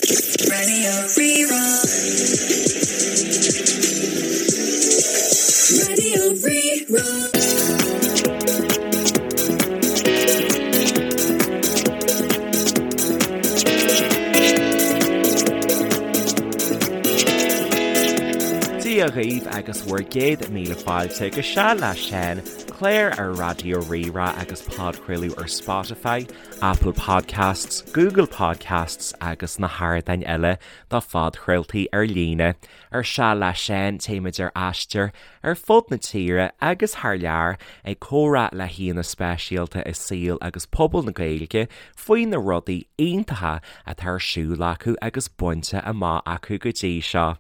Radio Rí-Rá. Radio Rí-Rá. Dia dhaoibh agus bhur gcéad míle fáilte go Seal le Seán, clár ar Raidió Rí-Rá agus podchraoladh ar Spotify, Apple Podcasts, Google Podcasts agus na hardáin eile do phodchraoltaí ar líne. Ar Seal le Seán, téimid ar aistear ar fud na tíre agus thar lear ag comhrá le haíonna speisialta i saol agus pobal na Gaeilge faoi na rudaí iontacha atá ar siúl acu agus bainte amach acu go dtí seo.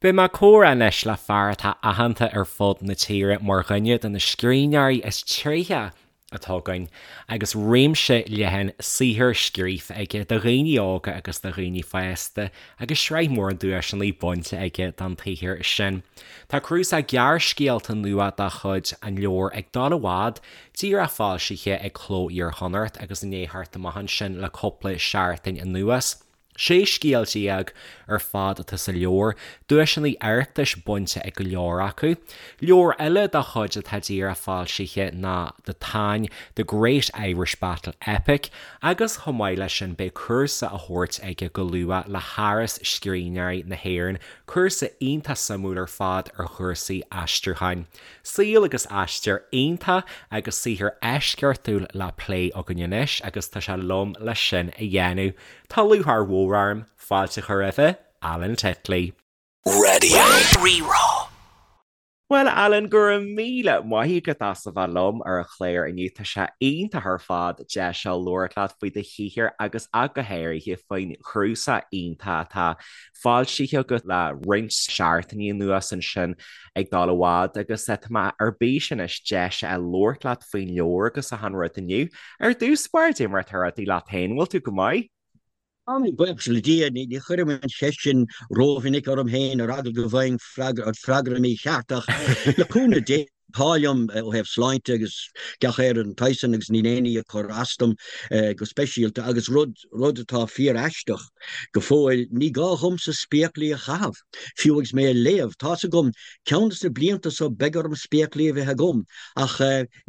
Beidh mé ag comhrá anois le fear atá aitheanta ar fud na tíre mar dhuine de na scríbhneoirí is tréithe atá againn agus réimse leathan saothar scríofa aige do dhaoine óga agus do dhaoine fásta agus sraith mhór duaiseanna bainte aige don tsaothar sin. Tá cnuasach gearrscéalta nua dá chuid, an leabhar Ag Dul i bhFad, díreach foilsithe ag Cló Iar-Chonnacht agus i ndiaidh theacht amach ansin le cúpla seachtain anuas. 16 scéal ar fad atá sa leabhar, duaiseanna Oireachtais bainte ag go leor acu. Leabhar eile dá chuid atá díreach foilsithe ná The Táin, The Great Irish Battle Epic agus chomh maith leis sin beidh cúrsa á thabhairt aige go luath le hÁras Scríbhneoirí na hÉireann, cúrsa iontach suimiúil ar fad ar chúrsaí aistriúcháin. Saol agus aistear iontach agus saothar eisceachtúil le plé againn anois agus tá sé liom leis sin a dhéanamh. Tá lúcháir mhór orm fáilte a chur roimhe, Alan Titley. Radio Rí-Rá. Bhuel, Alan, go raibh míle maith agat as a bheith liom ar an chlár inniu. Tá sé iontach ar fad deis a labhairt leat faoi do shaothar agus ach go háirithe faoin chnuasach iontach atá foilsithe agat le roinnt seachtainí anuas ansin ag dul i bhfad agus tá mé ar bís anois deis a labhairt leat faoin leabhar agus achan rud inniu. Ar dtús báire, cad é mar atá rudaí leat féin, bhfuil tú go maith? Tá mé, buíochas le Dia. Ní chuirim an cheist sin rómhinic orm féin ar eagla go bhfaighinn freagra mícheart ach le cúnamh Dé tá liom ó thaobh sláinte agus gach aon rud den tsaghas san agus níl aon ní ag cur as dom go speisialta agus rud rud atá fíor-aisteach go fóill, ní gá dhomsa spéaclaí a chaitheamh, fiú agus mé ag léamh. Tá's agam, ceann de na blianta so beidh orm spéaclaí a bheith agam ach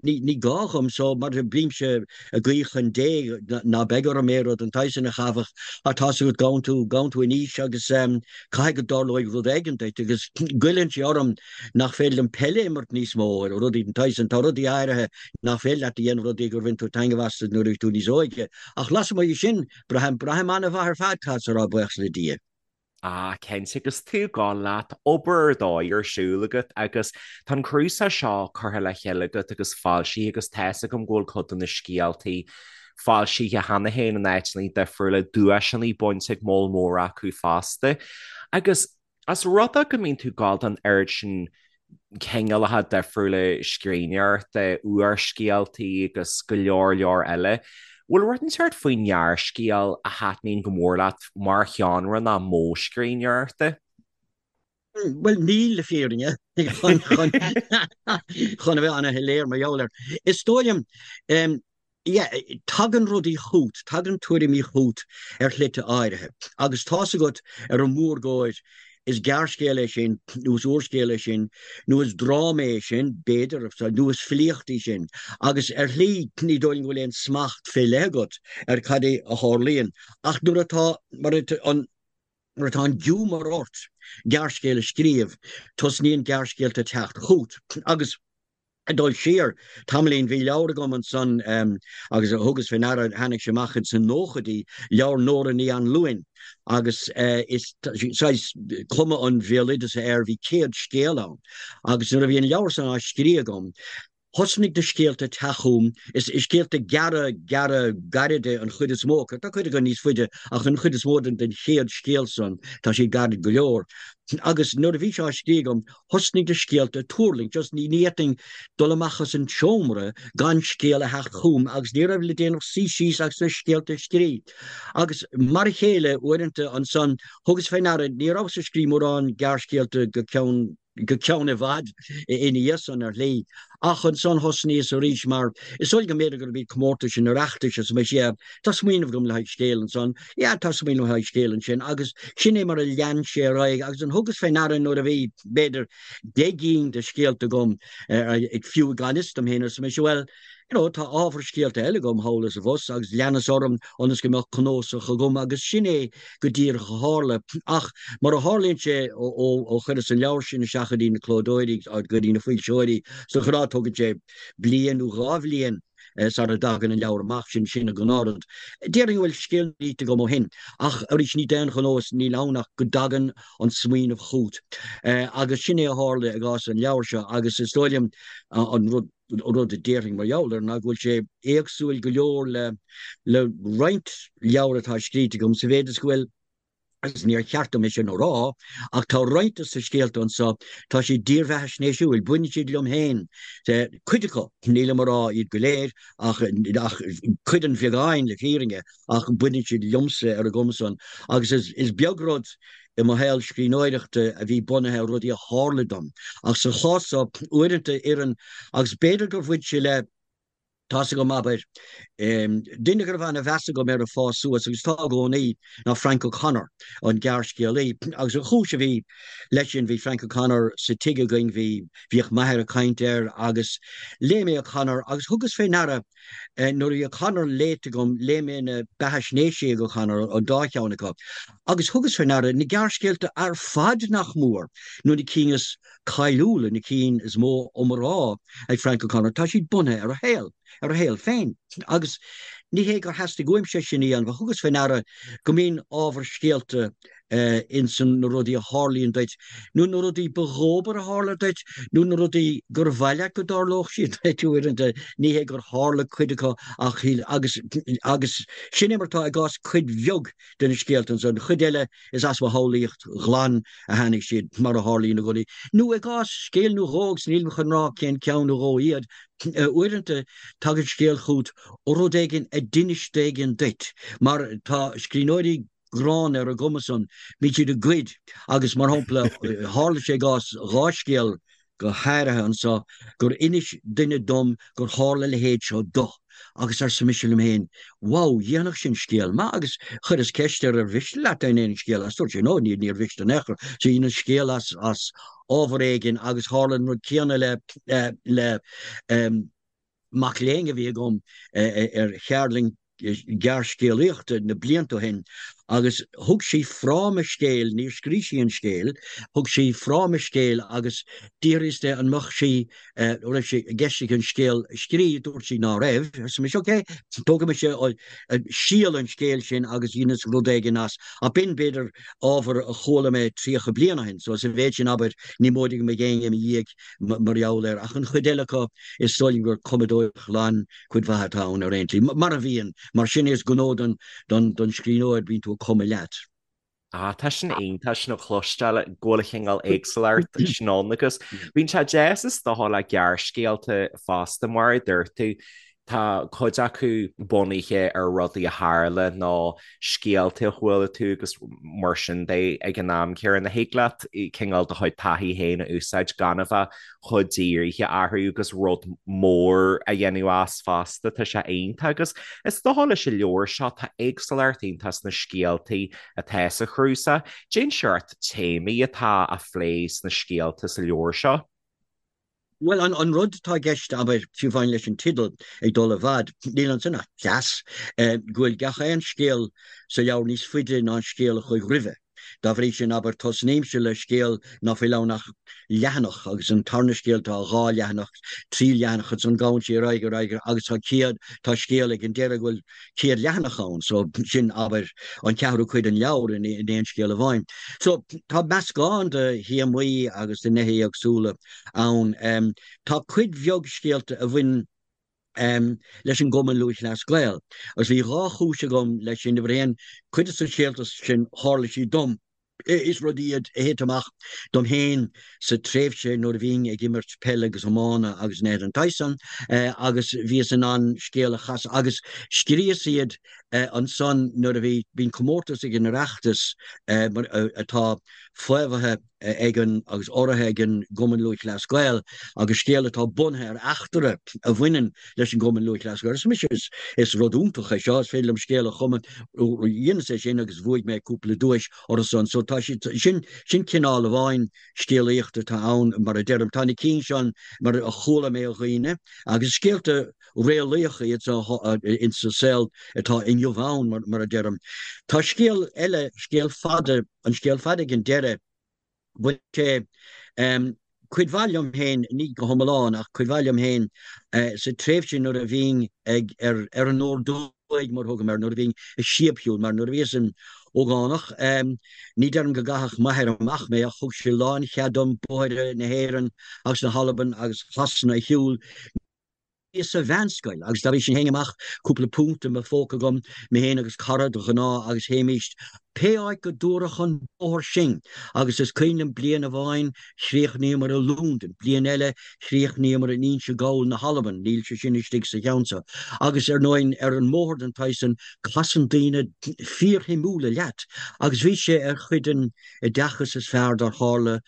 Ní, ní gá dhom so, mar bímse ag guí chun Dé ná beidh orm aon rud den tsaghas sin a chaitheamh ach tá's agat, gabhann tú, gabhann tú in aois agus caithfidh go dtarlóidh rud éigin duit agus goilleann sé orm nach féidir liom peil a imirt níos mó, rudaí den tsaghas sin. Tá rudaí áirithe nach féidir leat a dhéanamh, rudaí gur bhain tú taitneamh astu nuair a bhí tú níos óige. Ach lasmuigh de sin, braithim, braithim an-mhaith ar fad, caithfeadsa a rá, buíochas le Dia. Ah, cinnte, agus tú ag gabháil leat, obair ar dóigh ar siúl agat agus tá an cnuasach seo curtha le chéile agat agus foilsithe agus tá's agam go bhfuil cuid de na scéaltaí foilsithe cheana féin in áiteanna difriúla, duaiseanna bainte ag moll mór acu fosta. Agus as rud é go mbíonn tú ag gabháil don oiread sin cineálacha difriúla scríbhneoireachta, úrscéaltaí agus go leor leor eile. Bhfuil rud inteacht faoin ngearrscéal a thaitníonn go mór leat mar sheánra ná modh scríbhneoireachta? Bhuel, níl, le fírinne, chun a bheith an-shoiléir mar gheall air. Is dóigh liom, Yeah, tagann rudaí chút, tagann tuairimí chút ar shlite áirithe. Agus tá's agat, ar an mhórgóir, is gearrscéal é sin, nó is úrscéal é sin, nó is dráma é sin, b'fhéidir, nó is filíocht í sin. Agus ar shlí, ní dóigh liom go bhfuil aon smacht fé leith agat ar cad é a tharlaíonn. Ach nuair atá, mar an, nuair atá an giúmar ort gearrscéal a scríobh, tosnaíonn gearrscéalta teacht chút. Agus. Ag dul siar tamaillín, bhí leabhar agam ansan agus thugas fé ndeara, tháinig sé amach ins na nóchaidí, leabhar Nóra Ní Anluain agus is saghas cuma an bhéaloideasa air, bhí 100 scéal ann agus nuair a bhí an leabhar san á scríobh agam, thosnaigh na scéalta teacht chugam, is scéalta gearra, gearra, gairide an chuid is mó acu, tá cuid acu níos faide ach an chuid is mó den chéad scéal san, tá siad gairid go leor. Agus nuair a bhí sé á scríobh agam, Thosnaigh na scéalta ag tuirlingt, just ní fhéadfainn dul amach as an tseomra gan scéal a theacht chugam agus ní raibh le déanamh ach suí síos agus na scéalta a scríobh. Agus mar a chéile, uaireanta ansan, thugas fé ndeara, ní rabhas ag scríobh mórán gearrscéalta go ceann. go ceann i bhfad ina dhiaidh san ar shlí. Ach ansan thosnaíos arís mar is dóigh go mb'fhéidir gurb iad comórtais an Oireachtais arsa mise yeah tá smaoineamh agam le haghaidh scéil ansan, yeah tá smaoineamh le haghaidh scéil ansin agus sin é mar a lean sé ar aghaidh agus an thugas fé ndeara nuair a bhí b'fhéidir 10 gcinn de scéalta agam fiú gan fhios dom féin arsa mise bhuel you know, tá ábhar scéalta eile agam thall is abhus agus leanas orm ionas go mbeadh cnósach agam agus sin é go díreach a tharla. Ach mar a tharlaíonn sé ó chuireas an leabhar sin isteach go dtí na clódóirí, go dtí na foilseoirí, de ghnáth tógann sé bliain nó dhá bhliain sara dtagann an leabhar amach, sin sin an gnáthrud. Déarfainn go bhfuil scéal scríte agam ó shin ach arís ní d'aon ghnó is níl ann ach go dtagann an smaoineamh chugat. Agus sin é a tharla i gcás an leabhair seo agus is dóigh liom an rud, rud a déarfainn mar gheall air ná go bhfuil sé éagsúil go leor le le roinnt leabhar atá scríte agam sa mhéid is go bhfuil, agus níor cheart dom é sin a rá, ach tá roinnt de na scéalta anseo, tá siad dírbheathaisnéisiúil, baineann siad liom féin, cuid acu, nílim a rá iad go léir, ach ach cuid an bheagáin le fírinne, ach baineann siad liomsa ar an gcuma san agus is is beag rud i mo shaol scríbhneoireachta a bhí bunaithe ar rudaí a tharla dom. Ach sa chás seo, uaireanta oireann, agus b'fhéidir gur bhain sé le, tá's agam, abair, duine go raibh ana-mheas agam air ag fás suas, agus tá i gcónaí, ná Frank O'Connor, an gearrscéalaí. Agus an chúis a bhí leis sin, bhí Frank O'Connor sa tigh againn, bhí, bhíodh m'athair ag caint air, agus léigh mé O'Connor agus thugas fé ndeara, Nuair a bhí O'Connor léite agam, léigh mé na beathaisnéisí ag O'Connor, an dá cheann acu, agus thugas fé ndeara na gearrscéalta ar fad nach mór, nó na cinn is cáiliúla, na cinn is mó iomrá ag Frank O'Connor, tá siad bunaithe ar a shaol, ar a shaol féin. Agus ní hé gur theastaigh uaimse sin a dhéanamh, ach thugas fé ndeara go mbíonn ábhar scéalta ins na rudaí a tharlaíonn duit, nó na rudaí ba dhóbair a tharla duit, nó na rudaí gur mhaith leat go dtarlódh siad duit uaireanta, ní hé gur tharla cuid acu ach shíl, agus, agus sin é mar atá i gcás cuid bheag de na scéalta anso, an chuid eile is as mo shamhlaíocht ghlan a tháinig siad, mar a tharlaíonn i gcónaí. Nó i gcás scéal nó dhó, agus nílim chun rá cén ceann nó dhó iad, uaireanta tagann scéal chugat ó rud éigin a d'inis duine éigin duit, mar tá scríbhneoirí gránna ar an gcuma san, bíonn siad ag goid agus, mar shampla, tharla sé i gcás dhá scéal go háirithe anso gur inis duine dom gur tharla a leithéid seo do agus arsa mise liom féin, wow, dhéanfadh sin scéal maith agus chuireas ceist air ar mhiste leat dá ndéanfainn scéal as, dúirt sé no, ní, níor mhiste in aon chor. So dheineas scéal as, as ábhar éigin agus tharla an rud céanna le, le, mac léinn a bhí agam ar cheardlann gearrscéalaíochta na blianta ó shin agus thug sí fráma scéil, níor scrígh sí an scéal, thug sí fráma scéil agus d'fhiafraíos di an mbeadh sí, an raibh sé i gceist aici an scéal a scríobh, dúirt sí ná raibh, arsa mise ok, tógfaidh mise síol an scéil sin agus dheineas rud éigin as. Ach b'in, b'fhéidir, ábhar a chuala mé 30 bliain ó shin, so sa mhéid sin, abair, ní móide go mbeidh éinne i mo dhiaidh mar gheall air, ach an chuid eile acu, is dóigh liom gur cumadóireacht ghlan cuid mhaith atá ann ar aon tslí, mar a bhíonn, mar sin is gnó don scríbhneoir, bíonn tú ag cumadh leat. Ah, tá sin iontach sin a chloisteáil go bhfuil cineál éagsúlacht sin ann agus bíonn sé deas is dócha le gearrscéalta fosta mar a dúirt tú, Tá cuid acu bunaithe ar rudaí a tharla nó scéalta a chuala tú agus mar sin de ag an am céanna. Thig leat cineál do chuid taithí féin a úsáid gan a bheith chomh dírithe orthu agus rud mór a dhéanamh as fosta. Tá sé iontach agus is dócha leis an leabhar seo tá éagsúlacht iontach sna scéaltaí atá sa chnuasach. Cén seort téamaí atá á phlé sna scéalta sa leabhar seo. Bhuel, an rud atá i gceist, abair, fiú amháin leis an teideal, Ag Dul i bhFad, níl ansin ach cleas, go bhfuil gach aon scéal sa leabhar níos faide ná an scéal a chuaigh roimhe. Dá bhrí sin, abair, tosnaímse le scéal ná fuil ann ach leathanach, agus an tarna scéal tá dhá leathanach, trí leathanach, ansan gabhann sé ar aghaidh, ar aghaidh, agus tá céad, tá scéal ag an deireadh go bhfuil 100 leathanach ann, so sin, abair, an ceathrú cuid den leabhar in aon scéal amháin. So tá meascán de théamaí agus de nithe éagsúla ann. Tá cuid bheag scéalta a bhain leis an gCumann Lúthchleas Gael, agus bhí dhá chúis agam leis sin. Uimhir a haon, cuid de na scéalta sin, tharla siad dom. Is rudaí iad a thit amach dom féin sa tréimhse nuair a bhínn ag imirt peile agus iomána agus nithe den tsaghas san agus bhíos in ann scéal a chasadh agus scríos iad. Ansan nuair a bhí, bíonn comórtas ag an Oireachtas atá faomhaithe ag an, agus urraithe ag an gCumann Lúthchleas Gael agus scéal atá bunaithe ar eachtra a bhaineann leis an gCumann Lúthchleas Gael. Arsa mise, is rud iontach é seo, is féidir liom scéal a chumadh. Dheineas é sin agus bhuaigh mé cúpla duais orthu san. So tá siad, sin, sin cineál amháin scéalaíochta atá ann, mar a deirim. Tá na cinn seo mar a chuala mé ó dhaoine agus scéalta réalaíocha iad insa saol atá inniu ann, mar a deirim. Tá scéal eile, scéal fada, an scéal fada ag an deireadh, bhain sé cuid mhaith liom féin, ní go hiomlán ach cuid mhaith liom féin, sa tréimhse nuair a bhínn ag, ar, ar an ordóig mar a thugaim air, nuair a bhínn ag síobshiúl, mar nuair a bhíos im ógánach, ní deirim go gcaitheadh m'athair amach mé ach thug sé lánchead dom bóithre na hÉireann agus na hAlban agus Shasana a shiúl. Bhíos sa mheánscoil agus dá bhrí sin théinn amach, cúpla punt i mo phóca agam, mé féin agus cara de ghnáth agus théimíst pé áit go dtabharfadh an bóthar sinn agus is cuimhin liom bliain amháin chríochnaíomar i Londain, bliain eile chríochnaíomar in Inse Gall na hAlban, níl sé sin istigh sa cheann seo, agus ar ndóigh ar an mbóthar den tsaghas san casann daoine fíorshuimiúla leat agus bhí sé ar chuid den oideachas is fearr dár tharla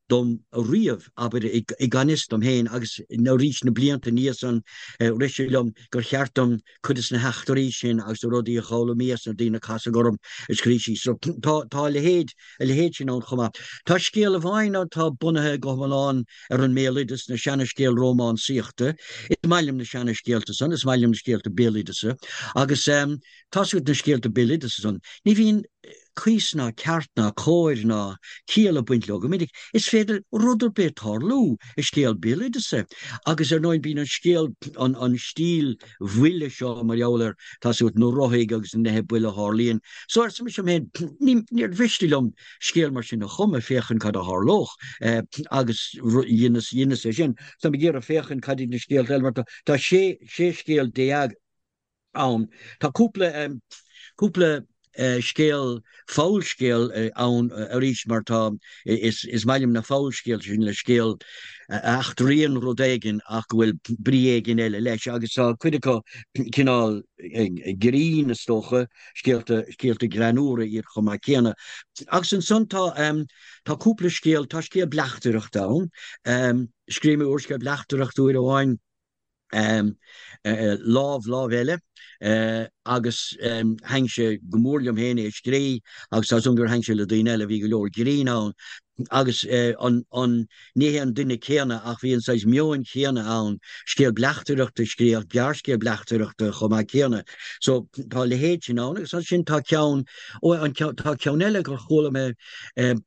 dom riamh, abair, i gan fhios dom féin, agus arís na blianta ina dhiaidh san, rith sé liom gur cheart dom cuid de na heachtraí sin agus na rudaí a d'fhoghlaimíos, na daoine a casadh orm, a scríobh síos. So, tá, tá a leithéid, a leithéid sin ann chomh maith. Tá scéal amháin ann atá bunaithe go hiomlán ar an mbéaloideas, na seana-scéal rómánsaíochta. Is maith liom na seana-scéalta san, is maith liom na scéalta béaloideasa, agus tá's agat na scéalta béaloideasa san, ní bhíonn, cuas ná ceart ná cóir ná ciall ag baint leo go minic. Is féidir rud ar bith tarlú i scéal béaloideasa agus ar ndóigh bíonn an scéal, an stíl bhuile seo mar gheall ar, tá's agat, na ruthaig agus na nithe buile a tharlaíonn. So arsa mise liom féin, níor mhiste liom scéal mar sin a chumadh, féachaint cad a tharlódh agus dheineas, dheineas é sin. Táim ag iarraidh féachaint cad iad na scéalta eile mar tá sé, 16 scéal ann. Tá cúpla, cúpla scéal, fabhalscéal ann arís mar tá, is, is maith liom na fabhalscéalta sin le scéal a eachtraíonn rud éigin ach go bhfuil brí éigin eile leis agus tá cuid acu cineál grinn is dócha, scéalta, scéalta greannúra iad chomh maith céanna. Agus ansan tá, tá cúpla scéal, tá scéal bleachtaireachta ann. Scríobh mé úrscéal bleachtaireachta uair amháin. Lámh, lámh eile agus thaitin sé go mór liom féin é a scrí agus tá 's agam gur thaitin sé le daoine eile, bhí go leor grinn ann agus an, an, ní hé an duine céanna ach bhí an saghas meoin chéanna ann, scéal bleachtaireachta a scrí ach gearrscéal bleachtaireachta chomh maith céanna. So tá a leithéid sin ann agus ansin tá ceann, ó an ceann, tá ceann eile gur chuala mé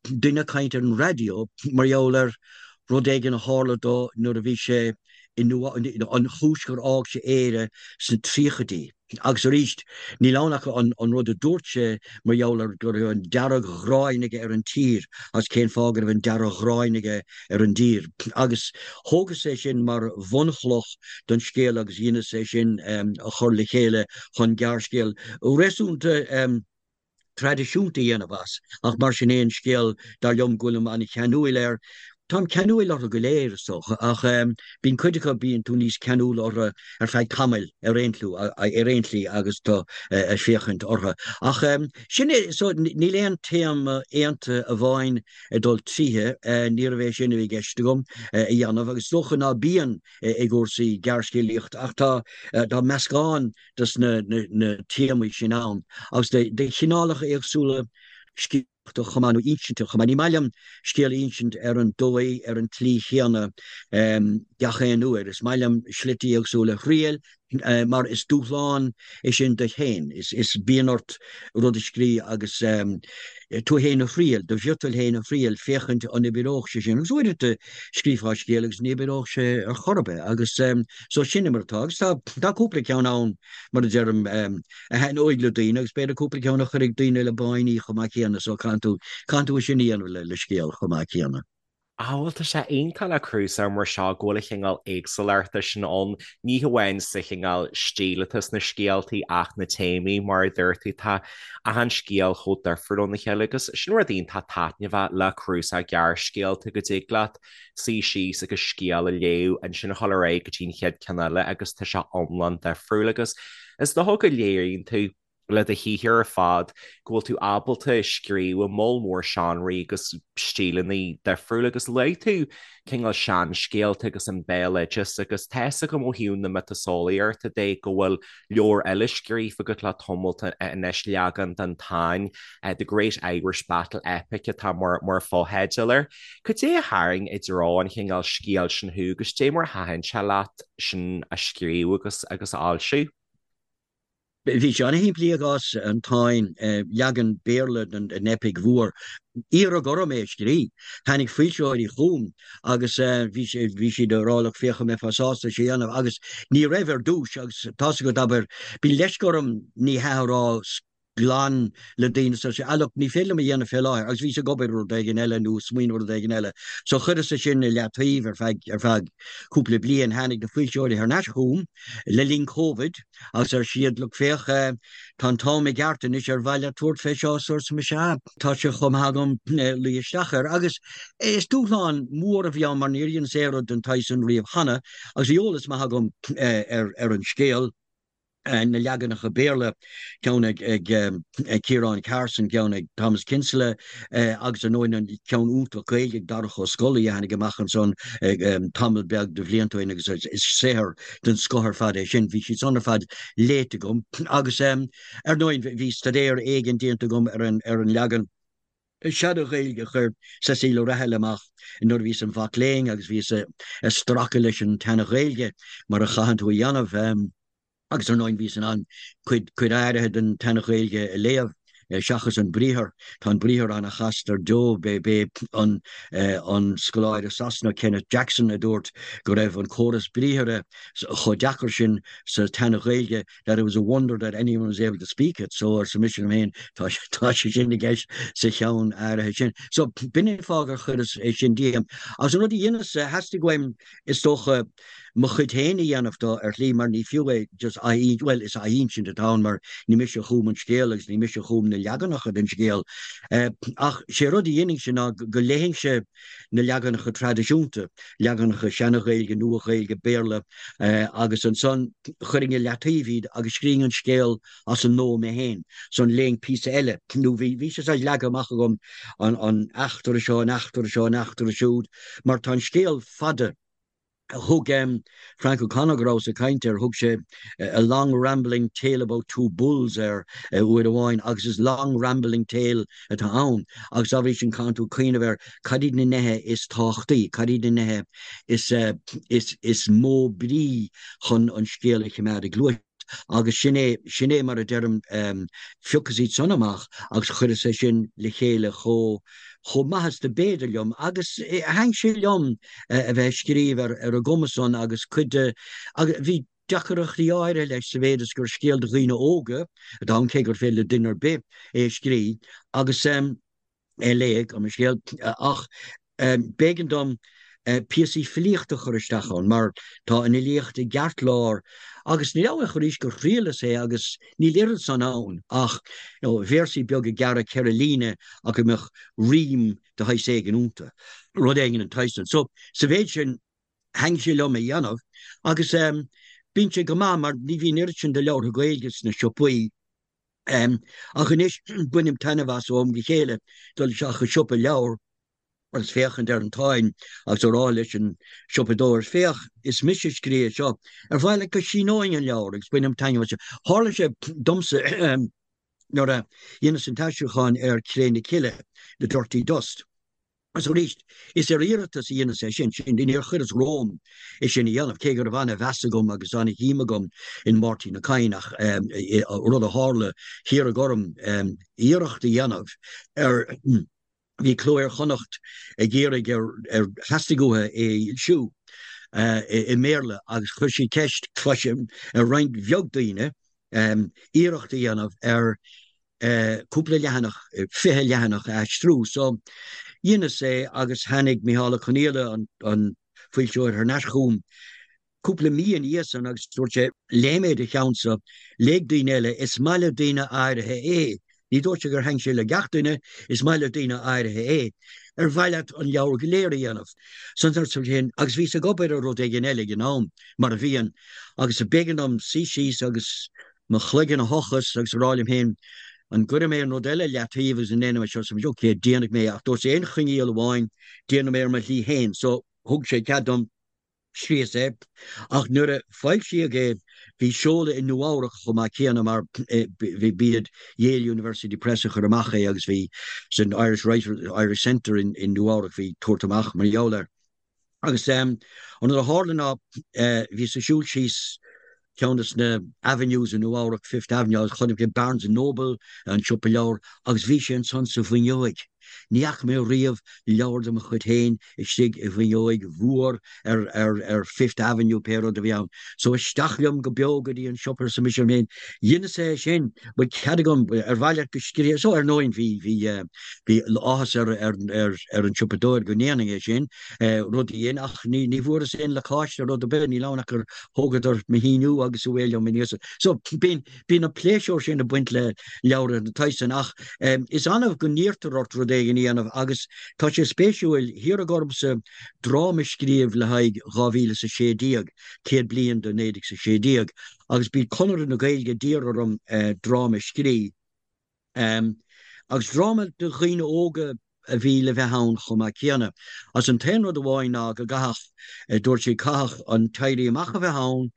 duine ag caint ar an raidió mar gheall ar rud éigin a tharla dó nuair a bhí sé i Nua, an chúis gur fhág sé Éire sna tríochaidí. Agus arís, níl ann ach an rud a dúirt sé mar gheall ar go raibh an dearg-ghráin aige ar an tír agus cén fáth go raibh an dearg-ghráin aige ar an dtír. Agus thógas é sin mar bhunchloch don scéal agus dheineas é sin a chur le chéile chun gearrscéal réasúnta traidisiúnta a dhéanamh as, ach mar sin féin, scéal, dar liom, go bhfuilim an-cheanúil air. Táim ceanúil orthu go léir, is dócha, ach bíonn cuid acu, bíonn tú níos ceanúla orthu ar feadh tamaill ar aon ar aon tslí agus tú ag féachaint orthu. Ach sin é, so níl aon téama aontaithe amháin ag dul tríothu, níorbh é sin a bhí i gceist agam a dhéanamh, agus is dócha ná bíonn i gcúrsaí gearrscéalaíochta, ach tá, tá meascán dos na téamaí sin ann agus de chineálacha éagsúla scéalaíochta chomh maith, nó insinte chomh maith. Ní maith liom scéal a insint ar an dóigh, ar an tslí chéanna gach aon uair. Is maith liom slite éagsúla a thriail mar is dúshlán é sin duit féin. Is bíonn ort rud a scrí agus tú féin a thriail, do mhiotal féin a thriail, féachaint an oibreodh sé sin. Agus uaireanta scríofá scéal agus ní oibreodh sé ar chor ar bith agus so sin é mar atá. Agus tá, tá cúpla ceann ann, mar a deirim, a thaitneoidh le daoine agus b'fhéidir cúpla ceann a chuirfidh daoine le báiní chomh maith céanna so caithfidh tú, caithfidh tú é sin a dhéanamh le, le scéal chomh maith céanna. Á, bhuel, tá sé iontach le cnuasach mar seo go bhfuil an chineál éagsúlachta sin ann, ní hamháin sa chineál stíl atá sna scéaltaí ach na téamaí, mar a dúirt tú, tá achan scéal chomh difriúil óna chéile agus sin rud iontach taitneamhach le cnuasach gearrscéalta go dtig leat suí síos agus scéal a léamh, ansin a dhul ar aghaidh go dtí an chéad ceann eile agus tá sé iomlán difriúil agus is dócha go léiríonn tú. le do shaothar ar fad, go bhfuil tú ábalta scríobh i moll mór seánraí agus stíleanna difriúla agus luaigh tú cineál seanscéalta agus an béaloideas agus tá fhios agam ó thaobh na miotaseolaíochta de go bhfuil leabhar eile scríofa agat le tamalt anois, leagan den Táin, The Great Irish Battle Epic atá mar mar fotheideal air. Cad é a tharraing i dtreo an chineál scéil sin thú agus cad é mar a thaitin sé leat sin a scríobh agus agus a fhoilsiú? Bhí sé an-shimplí i gcás an Táin, leagan Béarla den eipic mhór. Iarradh orm é a scrí. Tháinig foilsitheoirí chugam agus bhí siad ag rá look féach an mbeifeá sásta é seo a dhéanamh agus ní raibh ar dtús agus tá's agat abair, bíonn leisce orm ní hea a rá glan le daoine so ah look ní féidir liom a dhéanamh fé láthair agus bhíos ag obair ar rud éigin eile nó ag smaoineamh ar rud éigin eile so chuireas é sin i leataobh ar feadh ar feadh cúpla bliain. Tháinig na foilsitheoirí thar n-ais chugam le linn Covid agus ar siad look féach tá an t-am i gceart anois ar mhaith leat tabhairt fé seo so arsa mise ah tá sé chomh maith agam luí isteach air agus is dúshlán mór a bhí ann mar níor dheineas aon rud den tsaghas sin riamh cheana agus bhí eolas maith agam ar ar an scéal. na leaganacha Béarla, ceann ag Ciarán Carson, ceann ag Thomas Kinsella agus ar ndóigh an ceann iontach Gaeilge ag Darach Ó Scolaí a tháinig amach ansan tamall beag de bhlianta ó shin agus is saothar den scoth ar fad é sin. Bhí siad san ar fad léite agam agus ar ndóigh bhí staidéar éigin déanta agam ar an leagan Seana-Ghaeilge a chuir Cecile O'Rahilly amach nuair a bhíos im mhac léinn agus bhíos ag stracadh leis an tSeana-Ghaeilge mar a chaitheann tú a dhéanamh. Agus ar ndóigh bhíos in ann cuid cuid áirithe den tSeana-Ghaeilge a léamh, seachas an briathar. Tá an briathar an-chasta ar deo. B'é an an scoláire Sasanach Kenneth Jackson a dúirt go raibh an córas briathartha chomh deacair sin sa tSeana-Ghaeilge that it was a wonder that anyone was able to speak it, so arsa mise liom féin, tá tá sé sin i gceist sa cheann áirithe sin. So b'in é an fáth gur chuireas é sin díom. Agus an rud a dheineas, theastaigh uaim, is dócha, mo chuid féin a dhéanamh de ar shlí mar ní fiú é just ath, bhuel is athinsint atá ann mar ní mise a chum an scéal agus ní mise a chum na leaganacha den scéal. Ach sé rud a dhéanfainnse ná go léifinnse na leaganacha traidisiúnta, leaganacha Seana-Ghaeilge, Nua-Ghaeilge, Béarla, agus ansan chuirfinn i leataobh iad agus scríobhainn an scéal as an nua mé féin. Ansan léifinn píosa eile, nó bhí, bhí sé saghas leagtha amach agam, an, an eachtra seo, an eachtra seo, an eachtra siúd, mar tá an scéal fada. Thug Frank O'Connor, go rabhas ag caint air, thug sé a long rambling tale about two bulls air uair amháin agus is long rambling tale atá ann agus dá bhrí sin caitheann tú cuimhneamh ar cad iad na nithe is tábhachtaí, cad iad na nithe is, is, is mó brí chun an scéal a choimeád ag gluaiseacht. Agus sin é, sin é mar a deirim, phiocas iad san amach agus chuireas é sin le chéile chomh, chomh maith is do b'fhéidir liom agus thaitin sé liom a bheith ag scríobh ar ar an gcuma san agus cuid de, agus bhí deacaireachtaí áirithe leis sa mhéid is gur scéal do dhaoine óga atá ann cé gur féidir le duine ar bith é a scríobh agus. é a léamh, gabh mo leithscéal, ach b'éigean dom píosaí filíochta a chur isteach ann mar tá an fhilíocht i gceartlár agus ní amháin arís gur thriaileas é agus níl oiread san ann ach you know véarsaí beaga gearra 4 líne ach go mbeadh rím de shaghas éigin iontu, rud éigin den tsaghas sin. So sa mhéid sin thaitin sé liom a dhéanamh agus bíonn sé go maith mar ní bhíonn oiread sin de leabhartha Gaeilge sna siopaí. Ach anois bainim taitneamh as ó am go chéile dul isteach i siopa leabhar agus féachaint ar an Táin agus a rá leis an siopadóir, 'Féach, is mise a scríobh é seo, ar mhaith leat go síneoinn an leabhar? Agus bainim taitneamh as sin. Tharla sé domsa nuair a dheineas an t-aistriúchán ar Cré na Cille, The Dirty Dust. Agus arís, is ar iarratas a dheineas é sin, sin, níor chuireas romham é sin a dhéanamh, cé go raibh ana-mheas agam agus ana-shuim agam in Máirtín Ó Cadhain, ach rud a tharla, hiarradh orm iarracht a dhéanamh ar, bhí Cló Iar-Chonnacht ag iarraidh ar, ar, theastaigh uathu é a fhoilsiú i mBéarla agus chuir siad ceist, cloisim, ar roinnt bheag daoine iarracht a dhéanamh ar cúpla leathanach, 20 leathanach a aistriú. So, dheineas é agus tháinig Micheál Ó Conghaile, an foilsitheoir, thar n-ais chugam cúpla mí ina dhiaidh san agus dúirt sé, léigh mé do cheannsa, léigh daoine eile, is maith le daoine áirithe é. Ní dúirt sé gur thaitin sé le gach duine, is maith le daoine áirithe é. Ar mhaith leat an leabhar go léir a dhéanamh? So arsa mise féin, agus bhíos ag obair ar rud éigin eile ag an am, mar a bhíonn, agus b'éigean dom suí síos agus. mo chloigeann a thochas agus a rá liom féin, an gcuirfidh mé an rud eile leataobh agus an ndéanfaidh mé seo? So, ok, déanfaidh mé é ach dúirt aon choinníoll amháin, déanfaidh mé ar mo shlí féin. So, thug sé cead dom. Scríos é, ach nuair a foilsíodh é, bhí seoladh i Nua-Eabhrac chomh maith céanna mar b'iad Yale University Press a chuir amach é agus bhí san Irish Writers, Irish Centre in Nua-Eabhrac, bhí tabhairt amach mar gheall air. Agus an rud a tharla ná bhíos ag siúl síos ceann de na avenues i Nua Eabhrac, Fifth Avenue, agus chonaic mé Barnes and Noble, an siopa leabhar, agus bhí sé ansan sa bhfuinneoig. Ní fhaca mé riamh leabhar de mo chuid féin istigh i bhfuinneoig mhór ar, ar, ar Fifth Avenue, pé rud a bhí ann. So isteach liom go beo go dtí an siopa, arsa mise liom féin, dheineas é sin, bhfuil cead agam, ar mhaith leat go scríobh, so ar ndóigh bhí, bhí, bhí áthas ar, ar, ar, ar an siopadóir go ndéanfainn é sin, rud a dhein, ach ní, ní bhfuaireas aon lacáiste rud ar bith, níl ann ach gur thógadar mo shíniú agus away liom aníos. So, bíonn, bíonn an pléisiúr sin ag baint le leabhar den tsaghas san ach is annamh go n-iarrtar ort rud éigin a dhéanamh agus tá sé spéisiúil, hiarradh ormsa dráma a scríobh le haghaidh 2016, 100 bliain de 1916, agus bhí Conradh na Gaeilge a d'iarr orm dráma a scríobh. Agus dráma do dhaoine óga a bhí le bheith ann chomh maith céanna. Agus an t-aon rud amháin ná go gcaithfeadh, dúirt siad, caithfeadh an tÉirí Amach a bheith ann,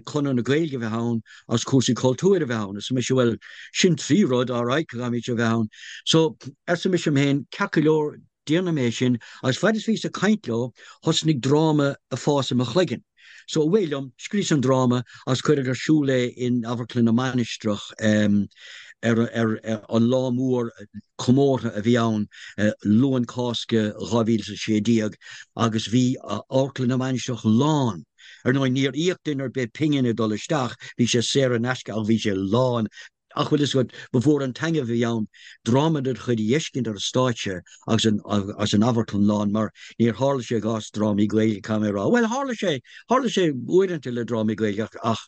Conradh na Gaeilge a bheith ann agus cúrsaí cultúir a bheith ann. Arsa mise, bhuel, sin trí rud, alright, go gcaithfimid a bheith ann. So, arsa mise liom féin, ceart go leor, Déanfaidh mé sin, agus faid is bhíos ag caint leo, thosnaigh dráma ag fás i mo chloigeann. So, away liom, scríos an dráma agus cuireadh ar siúl é in Amharclann na Mainistreach ar an lá mór comórtha a bhí ann, Luan Cásca 2016, agus bhí Amharclann na Mainistreach lán. Ar ndóigh, níor íoc duine ar bith pingin ag dul isteach, bhí sé saor in aisce ach bhí sé lán. Ach bhfuil fhios agat, ba mhór an taitneamh a bhí ann dráma de do chuid a fheiscint ar an stáitse agus an agus an amharclann lán, mar níor tharla sé i gcás drámaí Gaeilge, caithfidh mé a rá. Bhuel, tharla sé, tharla sé uaireanta le drámaí Gaeilge ach, ach,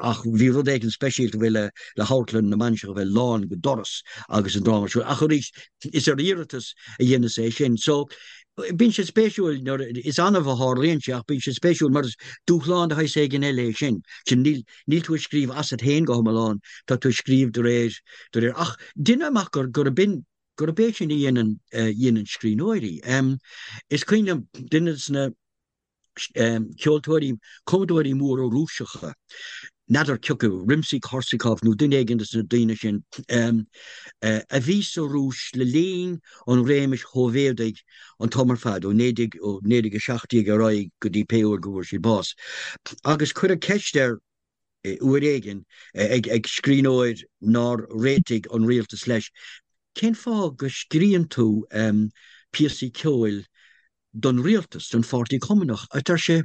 ach bhí rud éigin speisialta faoi le, le hAmharclann na Mainistreach a bheith lán go doras agus an dráma ar siúl. Ach arís, is ar iarratas a dheineas é sin. So, bíonn sé spéisiúil nuair, is annamh a tharlaíonn sé ach bíonn sé spéisiúil mar is dúshlán de shaghas éigin eile é sin. Sin, níl, Níl tú ag scríobh asat féin go hiomlán, tá tú ag scríobh de réir, de réir, ach deinim amach gur, gurb in, gurb é sin a dhéanann, a dhéanann scríbhneoirí. Is cuimhin liom duine de na ceoltóirí, cumadóirí móra Rúiseacha, n'fheadar cioca, Rimsky-Korsakov nó duine éigin de na daoine sin, a bhí sa Rúis le linn an réimis Shóivéadaigh an t-am ar fad, ó 1917 ar aghaidh go dtí pé uair go bhfuair siad bás. Agus cuireadh ceist air uair éigin ag scríbhneoir nár réitigh an rialtas leis, Cén fáth go scríonn tú píosaí ceoil don rialtas, don Pháirtí Cumannach? A deir sé,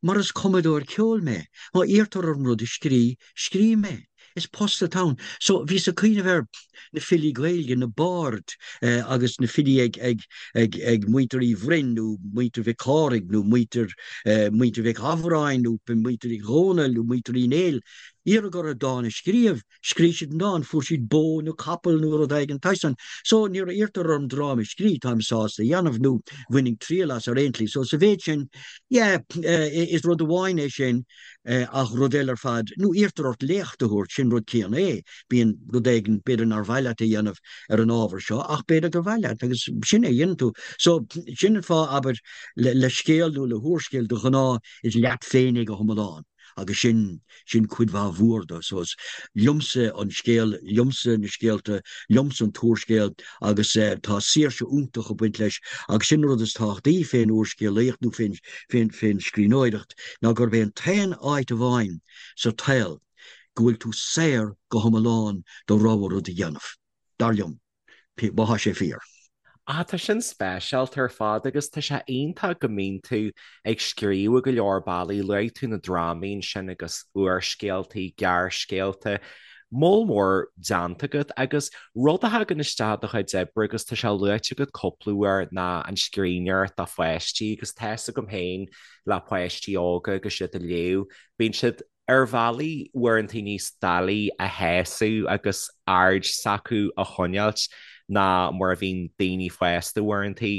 Mar is cumadóir ceoil mé. Má iarrtar orm rud a scrí, scríobh mé. Is post atá ann. So, bhíos ag cuimhneamh ar na filí Gaeilge, na baird agus na filí ag, ag, ag, ag muintir Uí Bhroin nó muintir Mhic Cárthaigh nó muintir, muintir Mhic Shamhráin nó muintir Uí Dhónaill nó muintir Uí Néill. Iarradh orthu dán a scríobh. Scríobh siad an dán, fuair siad bó nó capall nó rud éigin den tsaghas san. So, nuair a iarrtar orm dráma a scríobh, táim sásta a dhéanamh nó bhainfinn triail as ar aon tslí. So, sa mhéid sin, yeah, is rud amháin é sin. Ach rud eile ar fad, nó iarrtar ort léacht a thabhairt, sin rud céanna é. Bíonn rud éigin, b'fhéidir nár mhaith leat a dhéanamh ar an ábhar seo, ach b'fhéidir gur mhaith leat agus sin é a dhéanann tú. So, sin an fáth, abair, le scéal nó le húrscéal, de ghnáth is leat féin é go hiomlán agus sin, sin cuid mhaith mhór de. So is liomsa an scéal, liomsa na scéalta, liomsa an t-úrscéal agus tá saoirse iontach ag baint leis agus sin an rud is tábhachtaí fén úrscéalaíocht nó fén, fén, fén scríbhneoireacht ná gurb é an t-aon áit amháin sa tsaol go bhfuil tú saor go hiomlán do rogha rud a dhéanamh, dar liom, má thá sé fíor. Ah, tá sin speisialta ar fad agus tá sé iontach go mbíonn tú ag scríobh i go leor bealaí. Luaigh tú na drámaí ansin agus úrscéaltaí, gearrscéalta. Moll mór déanta agat agus rud a thagann isteach i do chuid oibre agus tá sé luaite agat cúpla uair ná an scríbhneoireacht do pháistí agus tá fhios agam féin le páistí óga agus iad ag léamh, bíonn siad ar bhealaí uaireanta níos doiligh a shásamh agus aird s'acu a choinneáilt ná mar a bhíonn daoine fásta uaireanta.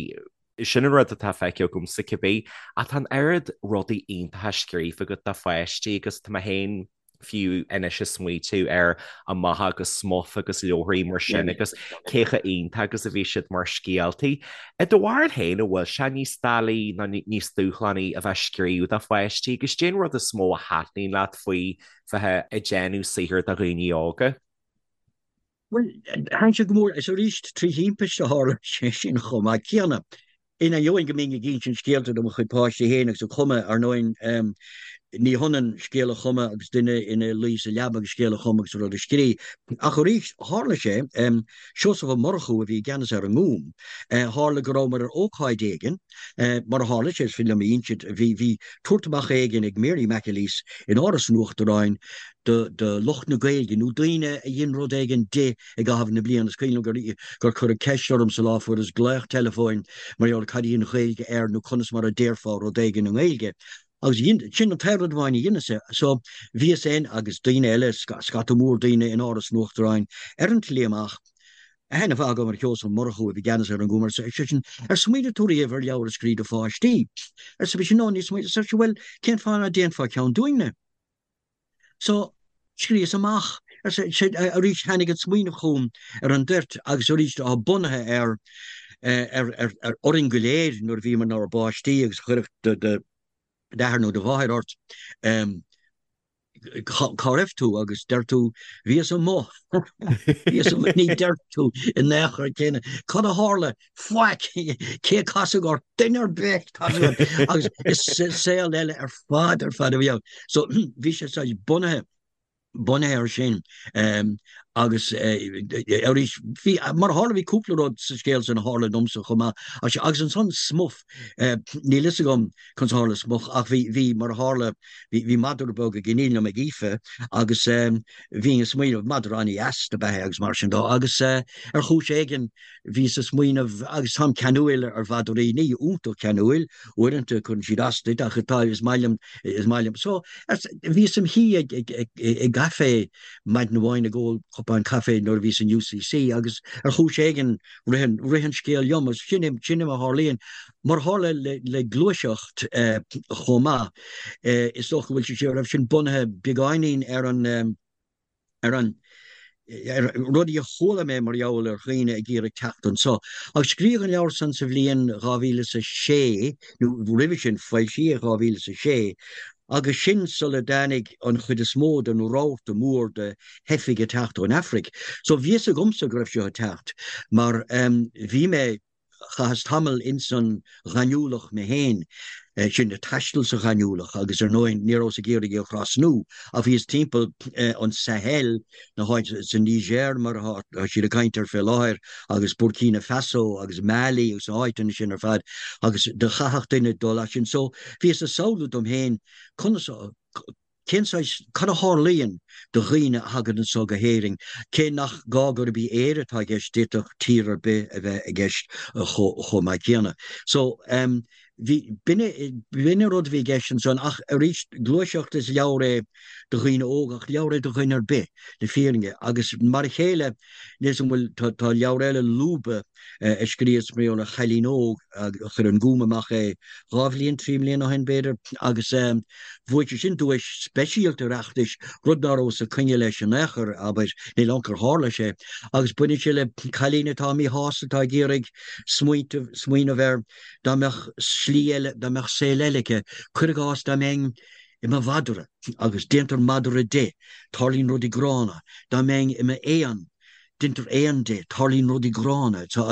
Sin an rud atá feicthe agamsa cibé. Ach tá an oiread rudaí iontacha scríofa agat do pháistí agus tá mé féin. Fiú anois ag smaoitiú ar Amach agus Smuff agus leabharthaí mar sin agus cé chomh iontach agus a bhí siad mar scéaltaí. I do bharúil féin, an bhfuil sé níos doiligh nó níos dúshlánaí a bheith ag scríobh do pháistí agus cén rud is mó a thaitníonn leat faoi bheith ag déanamh saothair do dhaoine óga? Bhuel, thaitin sé go mór, is arís trí thimpiste a tharla sé sin chomh maith céanna. In ainneoin go mbínn ag insint scéalta do mo chuid páistí féin agus ag cumadh, ar ndóigh, ní hionann scéal a chumadh agus duine ina luí sa leaba agus scéal a chumadh agus rud a scrí. Ach arís, tharla sé, Seosamh Ó Murchú a bhí i gceannas ar an nGúm, tharla go rabhamar ar ócáid éigin, mar a tharla sé, is féidir liom a insint, bhí, bhí tabhairt amach éigin ag Mary McAleese in Áras an Uachtaráin do lucht na Gaeilge nó daoine a dhein rud éigin di i gcaitheamh na bliana. Is cuimhin liom gur cuireadh ceist orm sa lá, fuaireas glaoch teileafóin mar gheall ar cad í an Ghaeilge air nó conas mar a déarfá rud éigin i nGaeilge. Agus sin an t-aon rud amháin a dheineas. So bhíos féin agus daoine eile, scata mór daoine in Áras an Uachtaráin ar an tslí amach. Aithne mhaith agam ar Sheosamh Ó Murchú a bhí i gceannas ar an nGúm, arsa seisean, ar smaoinigh tú riamh ar leabhar a scríobh do pháistí? Arsa mise, no, níor smaoinigh. Arsa sé, bhuel, cén fáth ná déanfá ceann dúinne? So, scríos amach, arsa sé, arís tháinig an smaoineamh chugam ar an dtoirt agus arís atá bunaithe ar, ar, ar, ar, orainn go léir nuair a bhíomar inár bpáistí agus chuirfeadh do, d'athair nó do mháthair ort, cá raibh tú agus deir tú bhíos amuigh, bhíos amuigh, ní deir tú in aon chor céanna, cad a tharla, faic, cé a casadh ort, duine ar bith, agus is saol eile ar fad ar fad a bhí ann. So bhí sé saghas bunaithe, bunaithe air sin agus arís bhí, mar a tharla bhí cúpla rud sa scéal sin a tharla domsa chomh maith agus ansan Smuff, níl fhios agam conas a tharla Smuff ach bhí, bhí, mar a tharla, bhí, bhí madra beag ag iníon liom ag Aoife agus bhínn ag smaoineamh, madra an-dheas dob ea é agus mar sin dó agus ar chúis éigin Bhíos ag smaoineamh, agus táim ceanúil ar mhadraí, ní iontach ceanúil, uaireanta cuireann siad as duit, ach tá, is maith liom, is maith liom. So, bhíos im shuí ag, ag, ag, i gcaifé maidin amháin ag ól cupán caife nuair a bhíos in UCC agus ar chúis éigin rith an, rith an scéal liom agus sin é, sin é mar a tharlaíonn. Mar a tharla le, le gluaiseacht chomh maith, is dócha go bhfuil sé, raibh sin bunaithe beagáinín ar an, ar an ar rudaí a chuala mé mar gheall ar dhaoine ag iarraidh teacht anso. Agus scríodh an leabhar san sa bhliain 2006, nó roimhe sin, foilsíodh 2006, agus sin sula dtáinig an chuid is mó den rabharta mór de theifigh ag teacht ón Afraic. So bhí fhios agamsa go raibh seo ag teacht, mar bhí mé Chaitheas tamall ins an ghaineamhlach mé féin, sin ag taisteal sa ghaineamhlach agus ar ndóigh ní rabhas ag iarraidh í a thrasnú ach bhíos timpeall an Sahel, na háite sa Niger mar atá siad ag caint air fé láthair agus Burkina Faso agus Mali agus na háiteanna sin ar fad agus do chaithfeadh duine dul as sin. So bhíos ag samhlú dom féin conas a, Cén saghas, cad a tharlaíonn do dhaoine a thagann anso go hÉirinn, cé nach gá gurb í Éire atá i gceist, d'fhéadfadh tír ar bith a bheith i gceist chomh maith céanna. So, bhí, b'in é, b'in an rud a bhí i gceist ansan ach arís, Gluaiseacht, is leabhar é do dhaoine óga ach leabhar é do dhuine ar bith, le fírinne. Agus mar a chéile, níl 'fhios a'm an bhfuil, tá, tá leabhar eile, Lúba, a scríos mar gheall ar chailín óg a chuir an Gúm amach é dhá bhliain, trí mbliana ó shin b'fhéidir, agus bhuaigh sé sin duais speisialta Oireachtais, rud ná rabhas ag coinne leis in aon chor, abair, níl ann gur tharla sé. Agus baineann sé le cailín atá míshásta, atá ag iarraidh smaointeamh, smaoineamh ar dá mbeadh slí eile, dá mbeadh saol eile aici, cuir i gcás dá mbeinn i mo mhadra, agus déantar madra de, tarlaíonn rudaí gránna, dá mbeinn i m'éan, Deintear éan de, tarlaíonn rudaí gránna. So,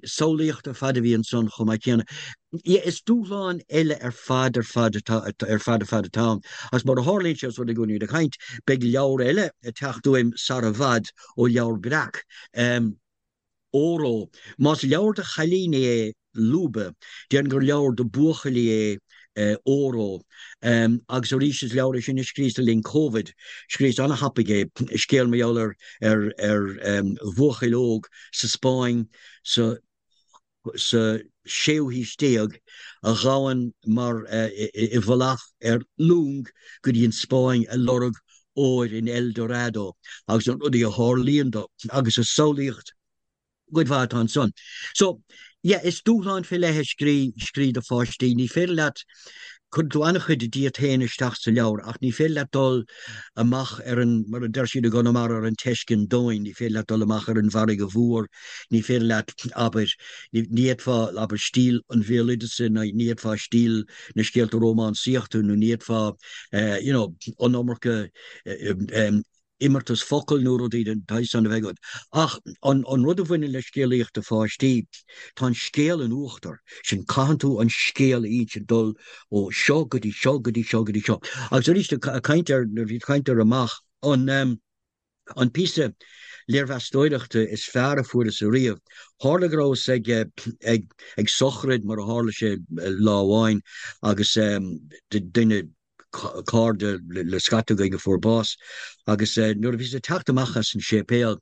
samhlaíocht ar fad a bhí ansan chomh maith céanna. Yeah, is dúshlán eile ar fad ar fad atá, ar fad ar fad atá ann. Agus mar a tharlaíonn sé, os rud é go bhfuilimid ag caint, beidh leabhar eile ag teacht uaim sara bhfad ó Leabhar Breac. Óró. Más leabhar do chailíní é Lúba, déarfainn gur leabhar do bhuachaillí é Óró. Agus arís is leabhar é sin a scríos le linn Covid. Scríos ana-thapaidh é, scéal mar gheall ar ar ar bhuachaill óg sa Spáinn sa sa séú haois déag a ghabhann mar i bhfolach ar long go dtí an Spáinn ag lorg óir in El Dorado agus na rudaí a tharlaíonn dó agus is samhlaíocht cuid mhaith atá ansan. So, yeah, is dúshlán fé leith é scrí, scrí do pháistí. Ní féidir leat. Cuireann tú an-chuid díot féin isteach sa leabhar ach ní féidir leat dul amach ar an, mar a deir siad i gConamara, ar an teiscinn domhain, ní féidir leat dul amach ar an bhfarraige mhór, ní féidir leat, abair, ní fhéadfá, abair, stíl an bhéaloideasa, ní fhéadfá stíl na scéalta rómánsaíochta nó ní fhéadfá, you know, an iomarca imeartas focal nó rudaí den tsaghas san a bheith agat. Ach an rud a bhaineann le scéalaíocht do pháistí, tá an scéal in uachtar, sin caitheann tú an scéal a insint, dul ó seo go dtí seo go dtí seo go dtí seo. Agus arís, ag caint ar, nuair a bhí caint ar amach, an an píosa léirmheastóireachta is fearr a fuaireas ariamh, tharla go rabhas ag ag ag sochraid mar a tharla sé lá amháin agus duine, cairde le scata againn a fuair bás agus nuair a bhíos ag teacht amach as an séipéal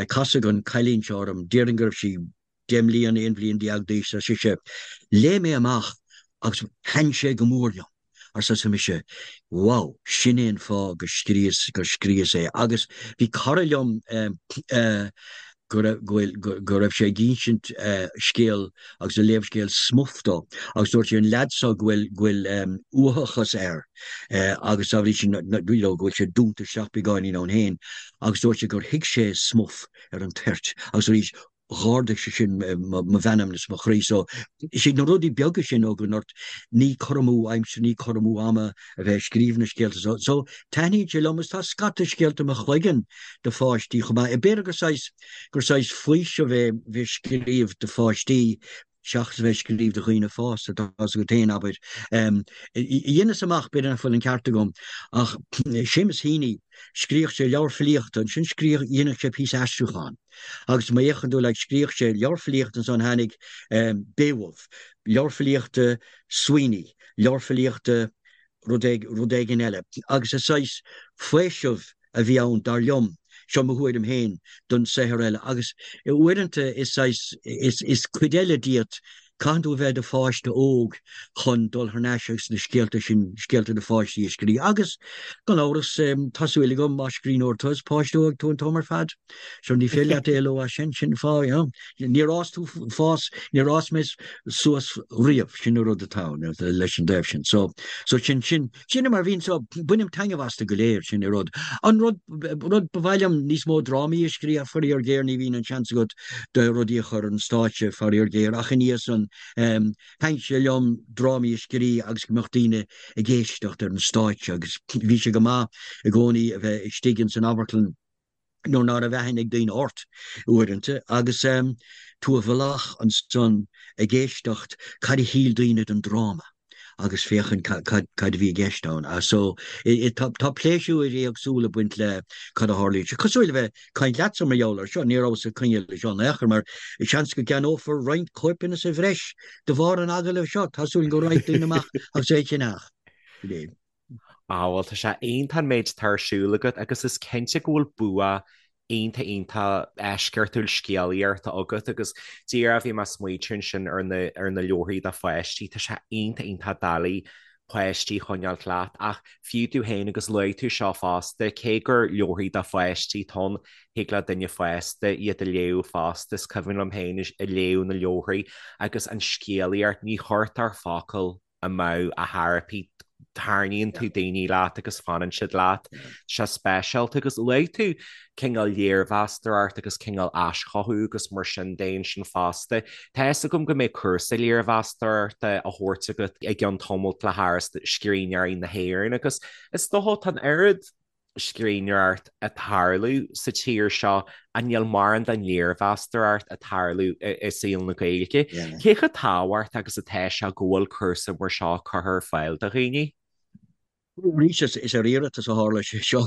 casadh an cailín seo orm, déarfainn go raibh sí 10 mbliana, 11 bhliain d'aois, ar sise, léigh mé amach agus thaitin sé go mór liom, arsa mise, wow, sin é an fáth go scríos, gur scríos é agus bhí cara liom go raibh, go raibh sé ag insint scéal agus ag léamh scéal Smuff dó agus dúirt sé an leaid seo go bhfuil, go bhfuil uathachas air agus dá bhrí sin you know go bhfuil sé dúnta isteach beagáinín ann féin agus dúirt sé gur thuig sé Smuff ar an toirt agus arís dh'ardaigh sé sin mo mheanmna is mo chroí. So is iad na rudaí beaga sin ó go ort ní cur amú aimsire, ní cur amú ama a bheith ag scríobh na scéalta so. So taitníonn sé liom agus tá scata scéalta i mo chloigeann do pháistí chomh maith. B'fhéidir gur saghas, gur saghas faoiseamh é bheith ag scríobh do pháistí seachas a bheith ag scríobh do dhaoine fásta, tá fhios agat féin, abair. Dheineas amach, b'fhéidir nach bhfuil an ceart agam, ach Seamus Heaney, scríobhadh sé leabhar filíochta, ansin scríobhadh, dhéanadh sé píosa aistriúcháin. Agus má fhéachann tú, like, scríobhadh sé leabhar filíochta ansan tháinig Beowulf, leabhar filíochta Sweeney, leabhar filíochta rud rud éigin eile. Agus is saghas faoiseamh a bhí ann, dar liom, seo mo thuairim féin, don saothar eile. Agus uaireanta is saghas, is cuid eile díot, caitheann tú a bheith i do pháiste óg chun dul thar n-ais agus na scéalta sin, scéalta do pháistí a scríobh. Agus, gan amhras, tá súil agam, más scríbhneoir tú, is páiste óg tú an t-am ar fad. So ní féidir leat éaló as sin, sin an fáth, you know. Níor fhás tú, fás, níor fhás mé suas riamh, sin an rud atá ann leis an dtaobh sin. So, so sin, sin, sin é mar a bhíonn, so bainim taitneamh astu go léir, sin an rud. An rud, rud ba mhaith liom níos mó drámaí a scríobh, faraor géar ní bhíonn an seans agat do rudaí a chur ar an stáitse, faraor géar, ach ina dhiaidh san, thaitin sé liom drámaí a scríobh agus go mbeadh daoine ag éisteacht ar an stáitse agus bhí sé go maith i gcónaí a bheith istigh ins an amharclann nuair ná raibh aithne ag daoine ort uaireanta agus tú i bhfolach ansan ag éisteacht cad a shíl daoine den dráma agus féachaint cad a bhí i gceist ann. So tá pléisiúir éagsúla ag baint le cad a tharlaíonn. Sé cosúil le bheith ag caint leatsa mar gheall air seo, ní rabhas ag coinne leis seo in aon chor mar seans go gceannófar roinnt cóipeanna sa bhreis de bharr an agallaimh seo. Tá súil go raghaidh daoine amach agus é a cheannach. Ah bhuel tá sé iontach an méid atá ar siúl agat agus is cinnte go bhfuil bua iontach iontach eisceachtúil scéalaíochta agat agus díreach bhí mé ag smaointiú ansin ar na ar na leabharthaí do pháistí, tá sé iontach iontach doiligh páistí a choinneáilt leat ach fiú tú féin agus luaigh tú seo fosta, cé gur leabharthaí do pháistí atá ann, thig le duine fásta iad a léamh fosta, is cuimhin liom féin ag léamh na leabharthaí agus an scéalaíocht, ní chuirtear focal amú a theiripí, tarraingíonn tú daoine leat agus fanann siad leat. Tá sé speisialta agus luaigh tú cineál léirmheastóireacht agus cineál aischothú agus mar sin de ansin fosta. Tá fhios agam go mbeidh cúrsa léirmheastóireachta á thabhairt agat i gceann tamaill le hÁras Scríbhneoirí na hÉireann agus is dócha tá an oiread scríbhneoireacht ag tarlú sa tír seo ach níl mórán den léirmheastóireacht ag tarlú i saol na Gaeilge. Cé chomh tábhachtach agus atá sé go bhfuil cúrsa mar seo curtha ar fáil do dhaoine? Arís, is ar iarratas a tharla sé seo.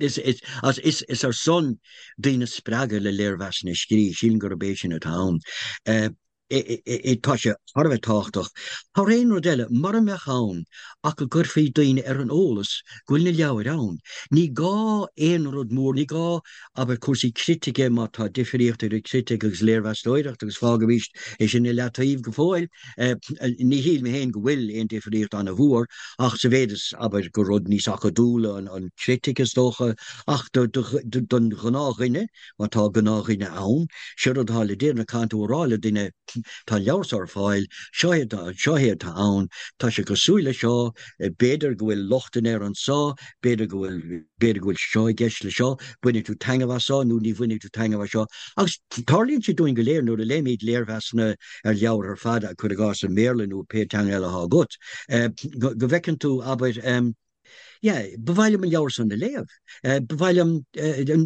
Is ar son daoine a spreagadh le léirmheasanna a scríobh, sílim gurb é sin atá ann. Tá sé thar a bheith tábhachtach. Thar aon rud eile, mura mbeadh ann ach go gcuirfí daoine ar an eolas go bhfuil na leabhair ann. Ní gá aon rud mór, ní gá, abair, cúrsaí critice, má tá difríocht idir critic agus léirmheastóireacht, agus fágaimis é sin i leataobh go fóill, ní shílim féin go bhfuil aon difríocht an-mhór, ach sa mhéid is, abair, gur rud níos acadúla an critic is dócha, ach don ghnáthdhuine, Má tá gnáthdhuine ann, sé rud atá le déanamh, caithfidh tú a rá le duine. tá an leabhar seo ar fáil, seo é atá, seo é atá ann, tá sé cosúil le seo, b'fhéidir go bhfuil lochtanna air anso, b'fhéidir go bhfuil, b'fhéidir go bhfuil seo i gceist le seo, bainfidh tú taitneamh as seo nó ní bhainfidh tú taitneamh as seo. Agus tarlaíonn sé dúinn go léir nuair a léimid léirmheasanna ar leabhair ar fad, cuir i gcás i mBéarla nó pé teanga eile atá agat, go bhfeiceann tú, abair, yeah, ba mhaith liom an leabhar san a léamh, ba mhaith liom,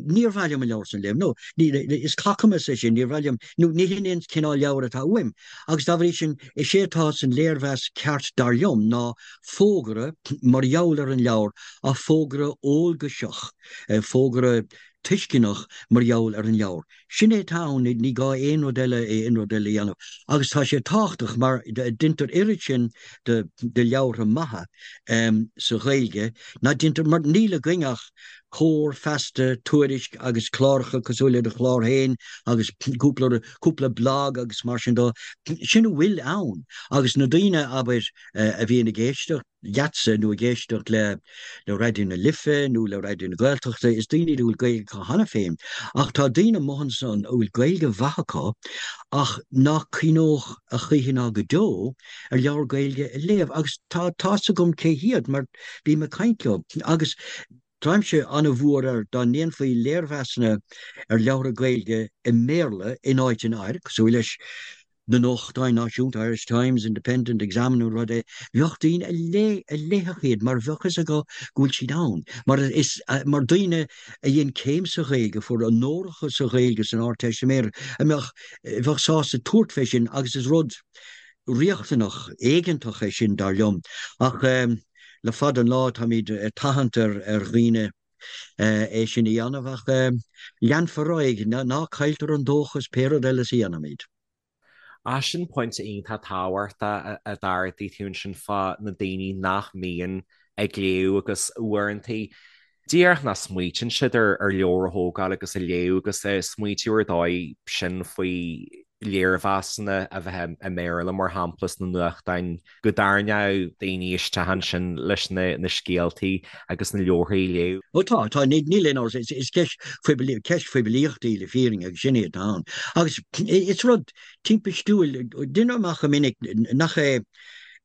níor mhaith liom an leabhar san a léamh, nó is cacamas é sin, níor mhaith liom, nó ní hin an cineál leabhair atá uaim. Agus dá bhrí sin, is é atá san léirmheas ceart dar liom ná fógra mar gheall ar an leabhar, ach fógra eolgaiseach, fógra tuisceanach mar gheall ar an leabhar. Sin é atá ann, ní gá aon rud eile, aon rud eile a dhéanamh. Agus tá sé tábhachtach mar deintear oiread sin de leabhartha maithe sa Ghaeilge ná deintear, mar níl againn ach Comhar, Feasta, Tuairisc agus cláracha cosúil le do chlár féin agus cúpla, cúpla blag agus mar sin de. Sin a bhfuil ann. Agus na daoine, abair, a bhíonn ag éisteacht leatsa nó ag éisteacht le Raidió na Life nó le Raidió na Gaeltachta, is daoine iad a bhfuil Gaeilge acu cheana féin. Ach tá daoine amuigh ansan a bhfuil Gaeilge mhaith acu ach nach cuimhneodh a choíche ná go deo ar leabhar Gaeilge a léamh. Agus tá tá's agam cé hiad mar bím ag caint leo. Agus táimse an-mhór air dá ndéanfaí léirmheasanna ar leabhartha Gaeilge i mBéarla in áiteanna áirithe, cosúil leis na nuachtáin náisiúnta, Irish Times, Independent, Examiner, rud é, bheadh daoine a léigh, a léifeadh iad mar bheadh fhios acu go bhfuil siad ann. Mar is, mar daoine a dhein céim sa Ghaeilge, a fuair onóracha sa Ghaeilge san Ardteistiméireacht, a mbeadh, bheadh sásta tabhairt fé sin agus is rud riachtanach, éigeantach é sin, dar liom. Ach le fada an lá táimid ag tathant ar dhaoine é sin a dhéanamh ach leanfar ar aghaidh, ná cailltear an dóchas pé rud eile a dhéanaimid. Ah, sin pointe iontach tábhachtach a d'ardaigh tú ansin fá na daoine nach mbíonn ag léamh agus uaireanta díreach nach smaoitíonn siad ar leabhar a thógáil agus a léamh agus smaoitiú ar dóigh sin faoi léirmheasanna a bheith i mBéarla, mar shampla, sna nuachtáin, go dtarraingeodh daoine isteach ansin leis na scéaltaí agus na leabharthaí a léamh. Ó tá, tá, níl aon amhras, is ceist phoiblí, ceist phoiblíochta í le fírinne agus sin é atá ann. Agus is rud timpistiúil, deinim amach go minic nach é,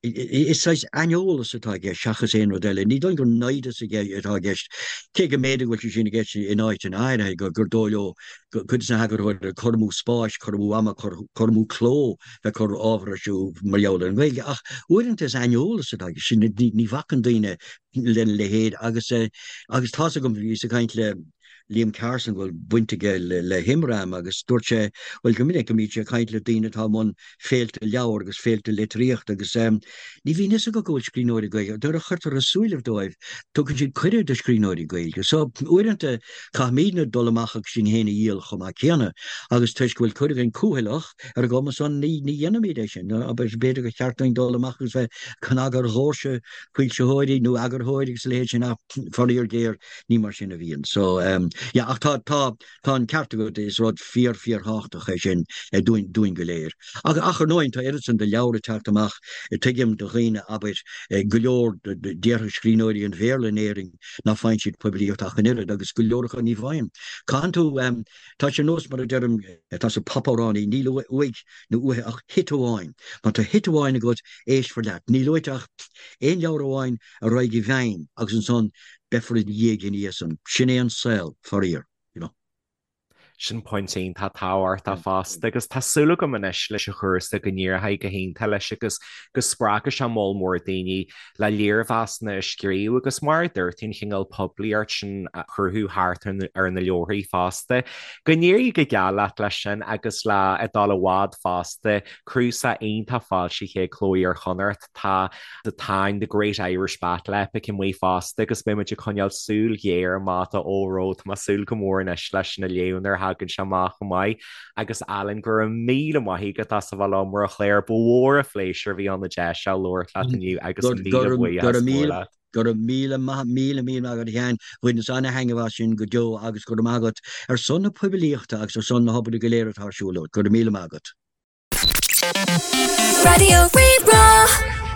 is saghas aineolas atá i gceist seachas aon rud eile. Ní dóigh gur naimhdeas atá i gceist, cé go mb'fhéidir go bhfuil sé sin i gceist in áiteanna áirithe, gur dóigh leo cuid de na heagarthóirí cur amú spáis, cur amú ama, cur amú cló bheith ag cur ábhar ar siúl mar gheall ar an nGaeilge. Ach uaireanta is aineolas atá i gceist, ní bhacann daoine lena leithéid agus agus tá's agam, bhíos ag caint le Liam Carson go bhfuil baint aige le hImram agus dúirt sé, bhuel go minic go mbíonn sé ag caint le daoine atá i mbun féilte leabhar agus féilte litríochta agus ní bhíonn fhios acu go bhfuil scríbhneoirí Gaeilge, nuair a chuirtear i súilibh dóibh, tugann siad cuireadh do scríbhneoirí Gaeilge. So, uaireanta caithfimidne dul amach agus sinn féin a dhíol chomh maith céanna agus toisc go bhfuil cuid againn cúthaileach ar an gcuma san ní dhéanaimid é sin. B'fhéidir gur cheart dúinn dul amach agus bheith ag cnagadh ar dhoirse foilsitheoirí nó eagarthóirí agus a leithéid sin ach faraor géar Ní mar sin a bhíonn. So, yeah, ach tá, tá, tá an ceart agat, is rud fíor, fíorthábhachtach é sin dúinn, dúinn go léir. Ach, ach ar ndóigh, tá oiread san de leabhair ag teacht amach, tuigim do dhaoine, abair, go leor, déarfaidh scríbhneoirí an Bhéarla in Éirinn ná faigheann siad poiblíocht ach an oiread, agus go leor acu ní bhfaigheann. Caitheann tú, tá sé ar nós mar a deirim, tá sa popamhránaí, níl uaidh nó uaithi ach hit amháin. Má tá hit amháin agat, éistfear leat. Níl uait ach aon leabhar amháin a raghaidh i bhfeidhm agus ansan beifear i do dhiaidh ina dhiaidh san. Sin é an saol, faraor, you know. Sin pointe iontach tábhachtach fosta agus tá súil agam anois leis an chúrsa go n-éireoidh go hiontach leis agus go spreagfaidh sé moll mór daoine le léirmheasanna a scríobh agus mar a dúirt tú an chineál poiblíocht sin a chruthú thart ar na leabharthaí fosta. Go n-éirí go geal leat leis sin agus le ag dul i bhfad fosta, cnuasach iontach foilsithe ag Cló Iar-Chonnacht. Tá The Táin, The Great Irish Battle Epic amuigh fosta agus beidh muid ag coinneáil súil ghéar amach dó óró tá mé ag súil go mór anois leis sin a léamh nuair a thagann sé amach chomh maith. Agus Alan, go raibh míle maith agat as a bheith liom ar an chlár, ba mhór an phléisiúr a bhí ann an deis seo labhairt leat inniu agus míle buíochas mór leat. Go raibh míle maith, míle míle maith agat a Sheáin, bhaineas ana-thaitneamh as sin go deo agus go raibh maith agat ar son na poiblíochta agus ar son na hobair go léir atá ar siúl agat. Go raibh míle maith agat. Raidió Rí-Rá.